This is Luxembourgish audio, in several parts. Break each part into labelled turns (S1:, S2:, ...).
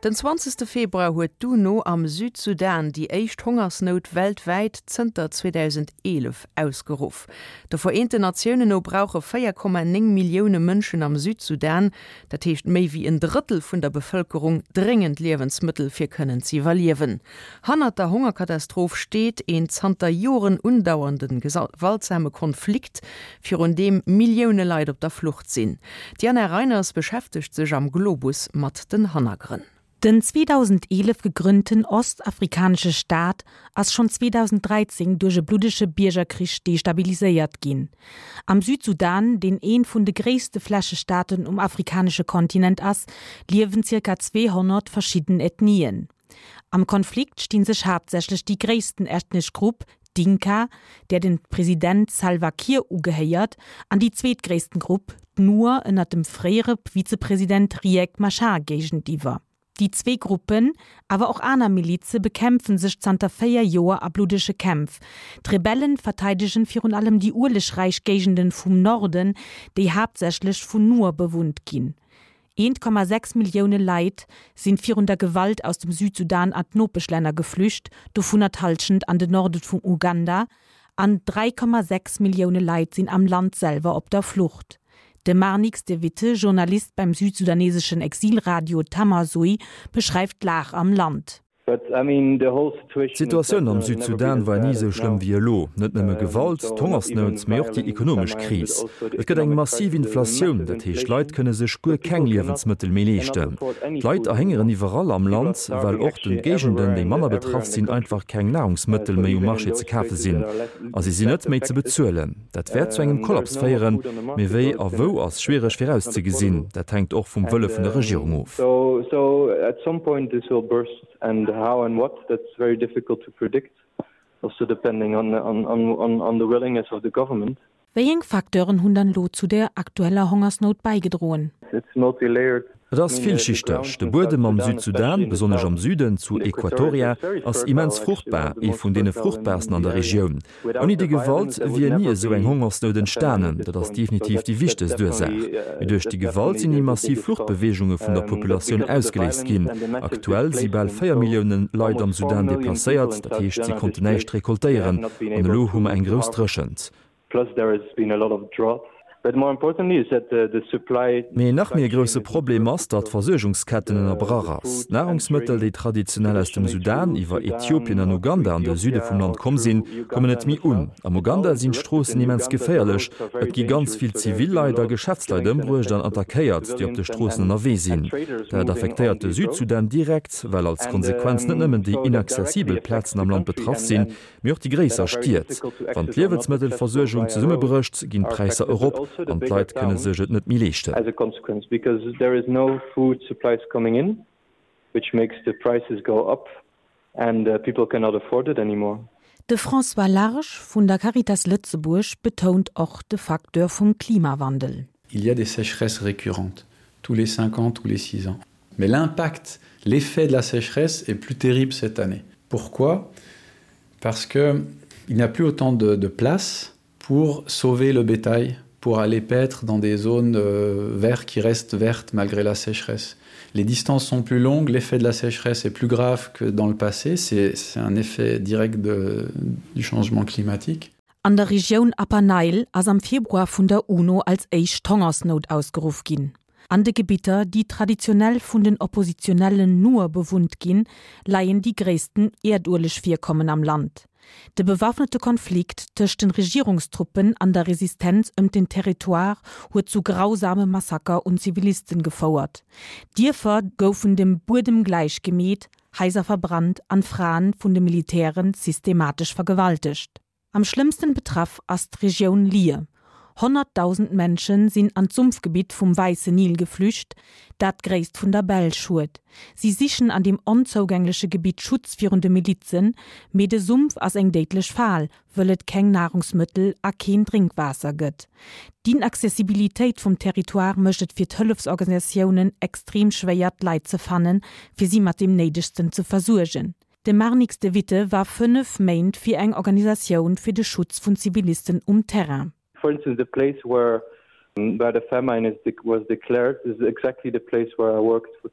S1: Den 20 Februar huet d'UNO am Südsudan déi éischt Hongersnout weltwäit zënter 2011 ausgeruff. De Vereenten Natiounen no brauche 4,9 Millioune Mënschen am Südsudan, dat heescht méi wéi en Drëttel vun der Bevëlkerung, dréngend Liewensmëttel fir kënnen z'iwwerliewen. Hannert der Hongerkatastroph steet een zanter Joren undauernde gewaltsame Konflikt, virun deem Millioune Leit op der Flucht sinn. D'Diana Reiners beschäftegt sech am Globus mat den Hannergrënn.
S2: Den 2011 gegrënnten ostafrikanesche Staat ass schonn 2013 duerch e bluddege Biergerkrich destabiliséiert ginn. Am Südsudan, deen ee vun de gréisste Flächestaaten um afrikanesche Kontinent ass, liewen zirka 200 verschidden Ethnien. Am Konflikt stinn sech haaptsächlech déi gréissten ethnesch Grupp, d'Dinka, där den President Salva Kiir ugehéiert, an déi zweetgréissten Grupp, d'Nuer ënnert dem fréiere Vizepresident Riek Machar géigentiwwer. Déi zwee Gruppen, awer och aner Milize bekämpfen sech zanter 4 Joer a bluddege Kämpf. D'Rebellen verteidegen virun allem déi uelegräich Géigenden vum Norden, déi haaptsächlech vun Nuer bewunnt ginn. 1,6 Millioune Leit sinn virun der Gewalt aus dem Südsudan an d'Nopeschlänner geflücht, dovunner d'Hallschent an den Norde vum Uganda, an 3,6 Millioune Leit sinn am Land selwer op der Flucht. De Marnix de Witte, Journalist beim südsudaneseschen Exilradio Tamazuj, beschreift d'Lag am Land.
S3: D'Situatioun am Südsudan war ni esou schlëmm wéi elo. Net nëmme Gewalt, d'Hongersnout, mee och déi ekonomesch Kris. Et gëtt eng massiv Inflatioun, dat heescht d'Leit kënne sech guer keng Liewensmëttel méi leeschten. D'Leit erhéngeren iwwerall am Land, well och den Géigenden, déi manner betraff sinn, einfach keng Nahrungsmëttel méi um Marché ze kafe sinn a si sinn net méi ze bezuelen. Dat wäert zu engem Kollaps féieren, mee wéi a wou ass schwiereg virauszegesinn. Dat hänkt och vum Wëlle vun der Regierung of.
S2: Wéieng Facteuren hunn dann elo zu der aktueller Hongersnout bäigedroen?
S3: Et ass villschichteg. De Buedem am Südsudan, besonnesch am Süden, zu Equatoria, ass immens fruchtbar, ee vun deene fruchtbarsten an der Regioun. Ouni déi Gewalt wier ni esou eng Hongersnout entstanen. Dat ass definitiv déi wichtegst Ursaach. Mee duerch déi Gewalt sinn déi massiv Fluchtbeweegunge vun der Populatioun ausgeléist ginn. Aktuell si bal 4 Millioune Leit am Sudan deplacéiert, dat heescht si konnten näischt rekoltéieren. An elo hu mer eng grouss Dréchent.
S4: Plus there has been a lot of drought. But more importantly is that the supply.
S3: Mee nach méi e grousse Problem ass, datt d'Versuergungsketten ënnerbrach ass. D'Nahrungsmëttel, déi traditionell aus dem Sudan iwwer Äthiopien an Uganda an de Süde vum Land komm sinn, kommen net méi un. Am Uganda sinn d'Stroossen immens geféierlech. Et gi ganz vill zivil Leit a Geschäftsleit ëmbruecht an attackéiert, déi op de Stroossen ënnerwee sinn. Dat affektéiert de Südsudan direkt, well als Konsequenz net nëmmen déi inaccessibel Plazen am Land betraff sinn, Mee och déi gréisser Stied. Wann d'Liewensmëttelversuergung zesummebrécht, ginn d'Präisser erop an d'Leit kënne sech et net méi leeschten.
S2: De François Large vun der Caritas Lëtzebuerg betount och de Facteur vum Klimawandel.
S5: Il y a des sécheresses récurrentes, tous les 5 ans, tous les 6 ans. Mais l'impact, l'effet de la sécheresse est plus terrible cette année. Pourquoi Parce que il n'y a plus autant de, de place pour sauver le bétail, pour aller paître dans des zones euh, vertes qui restent vertes malgré la sécheresse. Les distances sont plus longues, l'effet de la sécheresse est plus grave que dans le passé, c'est un effet direct de, du changement climatique.
S2: An der Regioun Upper Nile ass am Februar vun der UNO als éischt d'Hongersnout ausgeruff ginn. An de Gebitter, déi traditionell vun den oppositionellen Nuer bewunnt ginn, leien déi gréissten Äerduelegvirkommen am Land. De bewaffnete Konflikt tëscht den Regierungstruppen an der Resistenz ëm den Territoire huet zu grausame Massaker un Zivilisten gefouert. Dierfer goufen dem Buedem gläich gemeet, Haiser verbrannt an Fraen vun de Militären systematesch vergewaltegt. Am schlëmmsten betraff ass d'Regioun Lier. 100.000 Menschen sinn an d'Sumpfgebitt vum Wäisse Nil geflücht, dat d'Gréisst vun der Belsch huet. Si sichen an deem onzougängleche Gebitt Schutz virun de Milizen, mee de Sumpf ass eng déidlech Fal, wëll et keng Nahrungsmëttel a keen Drénkwaasser gëtt. D'Inaccessibilitéit vum Territoire mécht et fir d'Hëllefsorganisatiounen extrem schwéier d'Leit ze fannen, fir si mat deem Néidegsten ze versuergen. De Marnix de Witte war 5 Méint fir eng Organisatioun fir de Schutz vun Zivilisten um Terrain.
S4: For instance, the place where.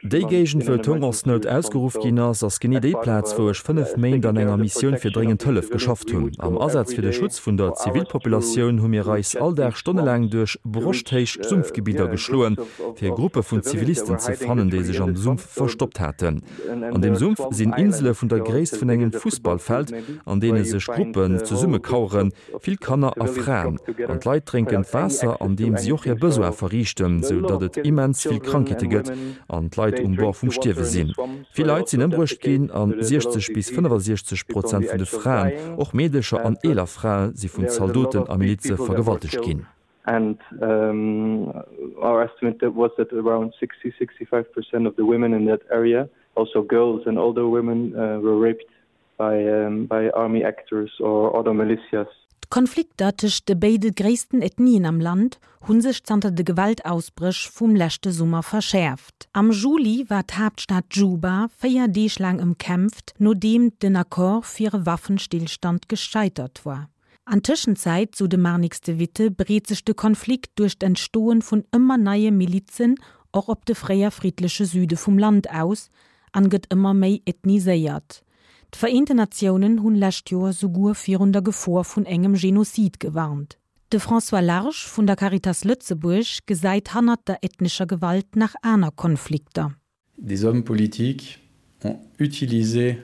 S3: Déi Géigend, wou d'Hongersnout ausgeruff ginn ass, ass genee déi Plaz, wou ech 5 Méint an enger Missioun fir dréngend Hëllef geschafft hunn. Am Asaz fir de Schutz vun der Zivilpopulatioun hu mir eis all Dag stonnelaang duerch broschthéich Sumpfgebidder geschloen, fir Gruppe vun Zivilisten ze fannen, déi sech am Sumpf verstoppt haten. An deem Sumpf sinn Insele vun der Gréisst vun engem Fussballfeld, an deene sech Gruppen zesummekaueren, Vill Kanner a Fraen an d'Leit drénken d'Waasser an deem si och hir Besoin verriichten, sou datt et immens vill Krankheete gëtt an d'Leit um Bord vum Stierwe sinn. Vill Leit sinn ëmbruecht ginn an 60 bis 65 Prozent vun de Fraen, och Meedecher an eeler Frae si vun Zaldoten a Milize vergewaltegt ginn.
S4: And our estimate was that around 60, 65 percent of the women in that area, also girls and older women, were raped. by army actors or other militias.
S2: D'Konflikter tëscht de béide gréissten Ethnien am Land hu sech zanter de Gewaltausbréch vum leschte Summer verschäerft. Am Juli war d'Haaptstad Juba 4 Deeg laang ëmkämpft, nodeem den Accord fir e Waffenstillstand gescheitert war. An Tëschenzäit, sou de Marnix de Witte, breet sech de Konflikt duerch d'Entstoen vun ëmmer neie Milizen och op de fréier friddleche Süde vum Land aus an gëtt ëmmer méi ethniséiert. D'Vereenten Natiounen hunn lescht Joer souguer virun der Gefor vun engem Genozid gewarnt. De François Large vun der Caritas Lëtzebuerg gesäit hannert der ethnescher Gewalt nach aner Konflikter.
S5: Des hommes politiques ont utilisé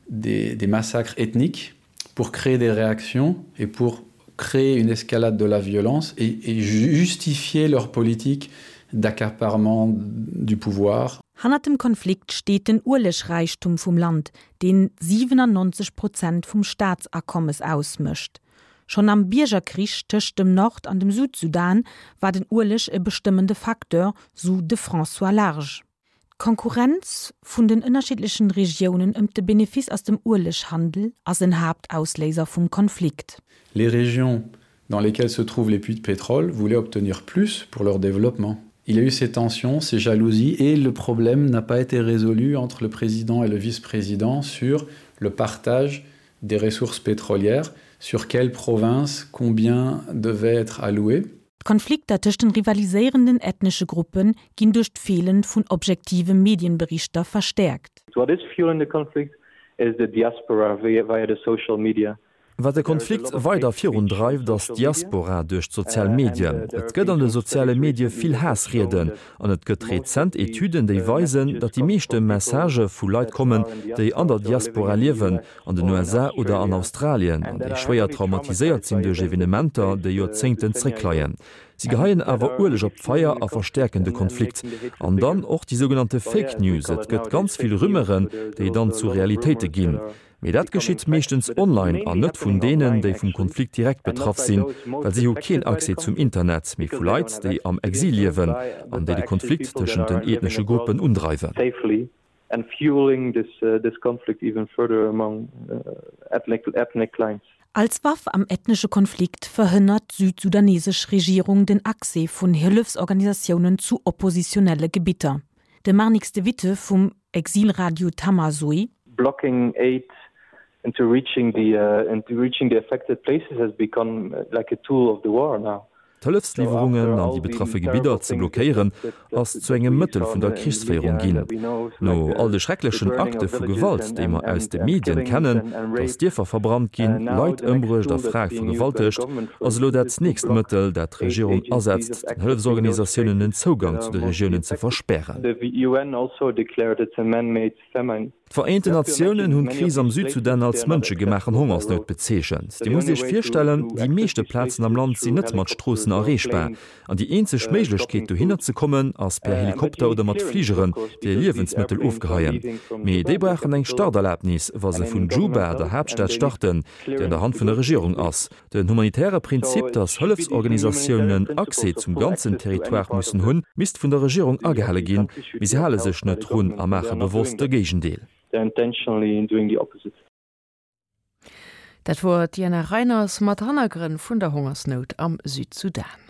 S5: des, des massacres ethniques pour créer des réactions et pour créer une escalade de la violence et, et justifier leur politique d'accaparement du pouvoir.
S2: Hannert dem Konflikt steet den Uelegräichtum vum Land, deen 97 Prozent vum Staatsakommes ausmécht. Schonn am Biergerkrich tëscht dem Nord an dem Südsudan war den Ueleg e bestëmmende Facteur, sou de François Large. D'Konkurrenz vun den ënnerschiddlechen Regiounen ëm de Benefice aus dem Ueleghandel ass en Haaptausléiser vum Konflikt.
S5: Les régions dans lesquelles se trouvent les puits de pétrole voulaient obtenir plus pour leur développement. Il y a eu ces tensions, ces jalousies et le problème n'a pas été résolu entre le président et le vice-président sur le partage des ressources pétrolières, sur quelle province combien devait être alloué.
S2: D'Konflikter tëscht den rivaliséierenden ethnesche Gruppe ginn duerch d'Feelen vun objektive Medienberichter verstäerkt.
S4: What is fueling the conflict is the diaspora via the social media.
S3: Wat de Konflikt weider virun dreift, ass d'Diaspora duerch d'sozial Medien. Et gëtt an de soziale Medie vill Haassrieden an et gëtt rezent Etüden, déi weisen, datt déi meeschte Messagë vu Leit kommen, déi an der Diaspora liewen, an den USA oder an Australien, an déi schwéier traumatiséiert sinn duerch Evenementer, déi Joerzéngten zréckleien. Si geheien awer Ueleg op d'Feier a verstäerken de Konflikt. An dann och déi sougenannte Fake News, et gëtt ganz vill Rumeuren, déi dann zu Realitéite ginn. Mee dat geschitt meeschtens online an net vun deenen, déi vum Konflikt direkt betraff sinn, well si hu keen Accès zum Internet, mee vu Leit, déi am Exil liewen an déi de Konflikt tëschent den ethnesche Gruppen undreiwen.
S4: And fueling this this conflict even further among ethnic ethnic lines.
S2: Als Waff am ethnesche Konflikt verhënnert d'südsudanesesch Regierung den Accès vun Hëllefsorganisatiounen zu oppositionelle Gebitter. De Marnix de Witte vum Exilradio Tamazoe.
S4: Blocking aid into reaching the into reaching the affected places has become like a tool of the war now.
S3: D'Hëllefsliwwerungen an déi betraffe Gebidder ze blockéieren, ass zu engem Mëttel vun der Krichsféierung ginn. No all de schrecklechen Akte vu Gewalt, déi mer aus de Medien kennen, datt Dierfer verbrannt ginn, Leit ëmbruecht a Frae vergewaltegt, ass elo dat nächst Mëttel, dat d'Regierung asetzt, den Hëllefsorganisatiounen den Zougang zu de Regiounen ze verspären. D'Vereenten Natiounen hunn d'Kris am Südsudan als mënschegemaachen Hongersnout bezeechent. Dir musst Iech virstellen, déi meeschte Plazen am Land sinn net mat Stroossen erreechbar an déi eenzeg Méiglechkeet dohinner ze kommen ass per Helikopter oder mat Fligeren, déi Liewensmëttel ofgeheien. Mee déi brauchen eng Starterlabnis, wa se vun Juba, der Haaptstad, starten, déi an der Hand vun der Regierung ass. Den humanitäre Prinzip, datt Hëllefsorganisatiounen Accès zum ganzen Territoire mussen hunn, misst vun der Regierung agehale ginn, mee si hale sech net drun a maache bewosst de Géigendeel.
S1: Dat wor d'Diana Reiners mat Hannergrënn vun der Hongersnout am Südsudan.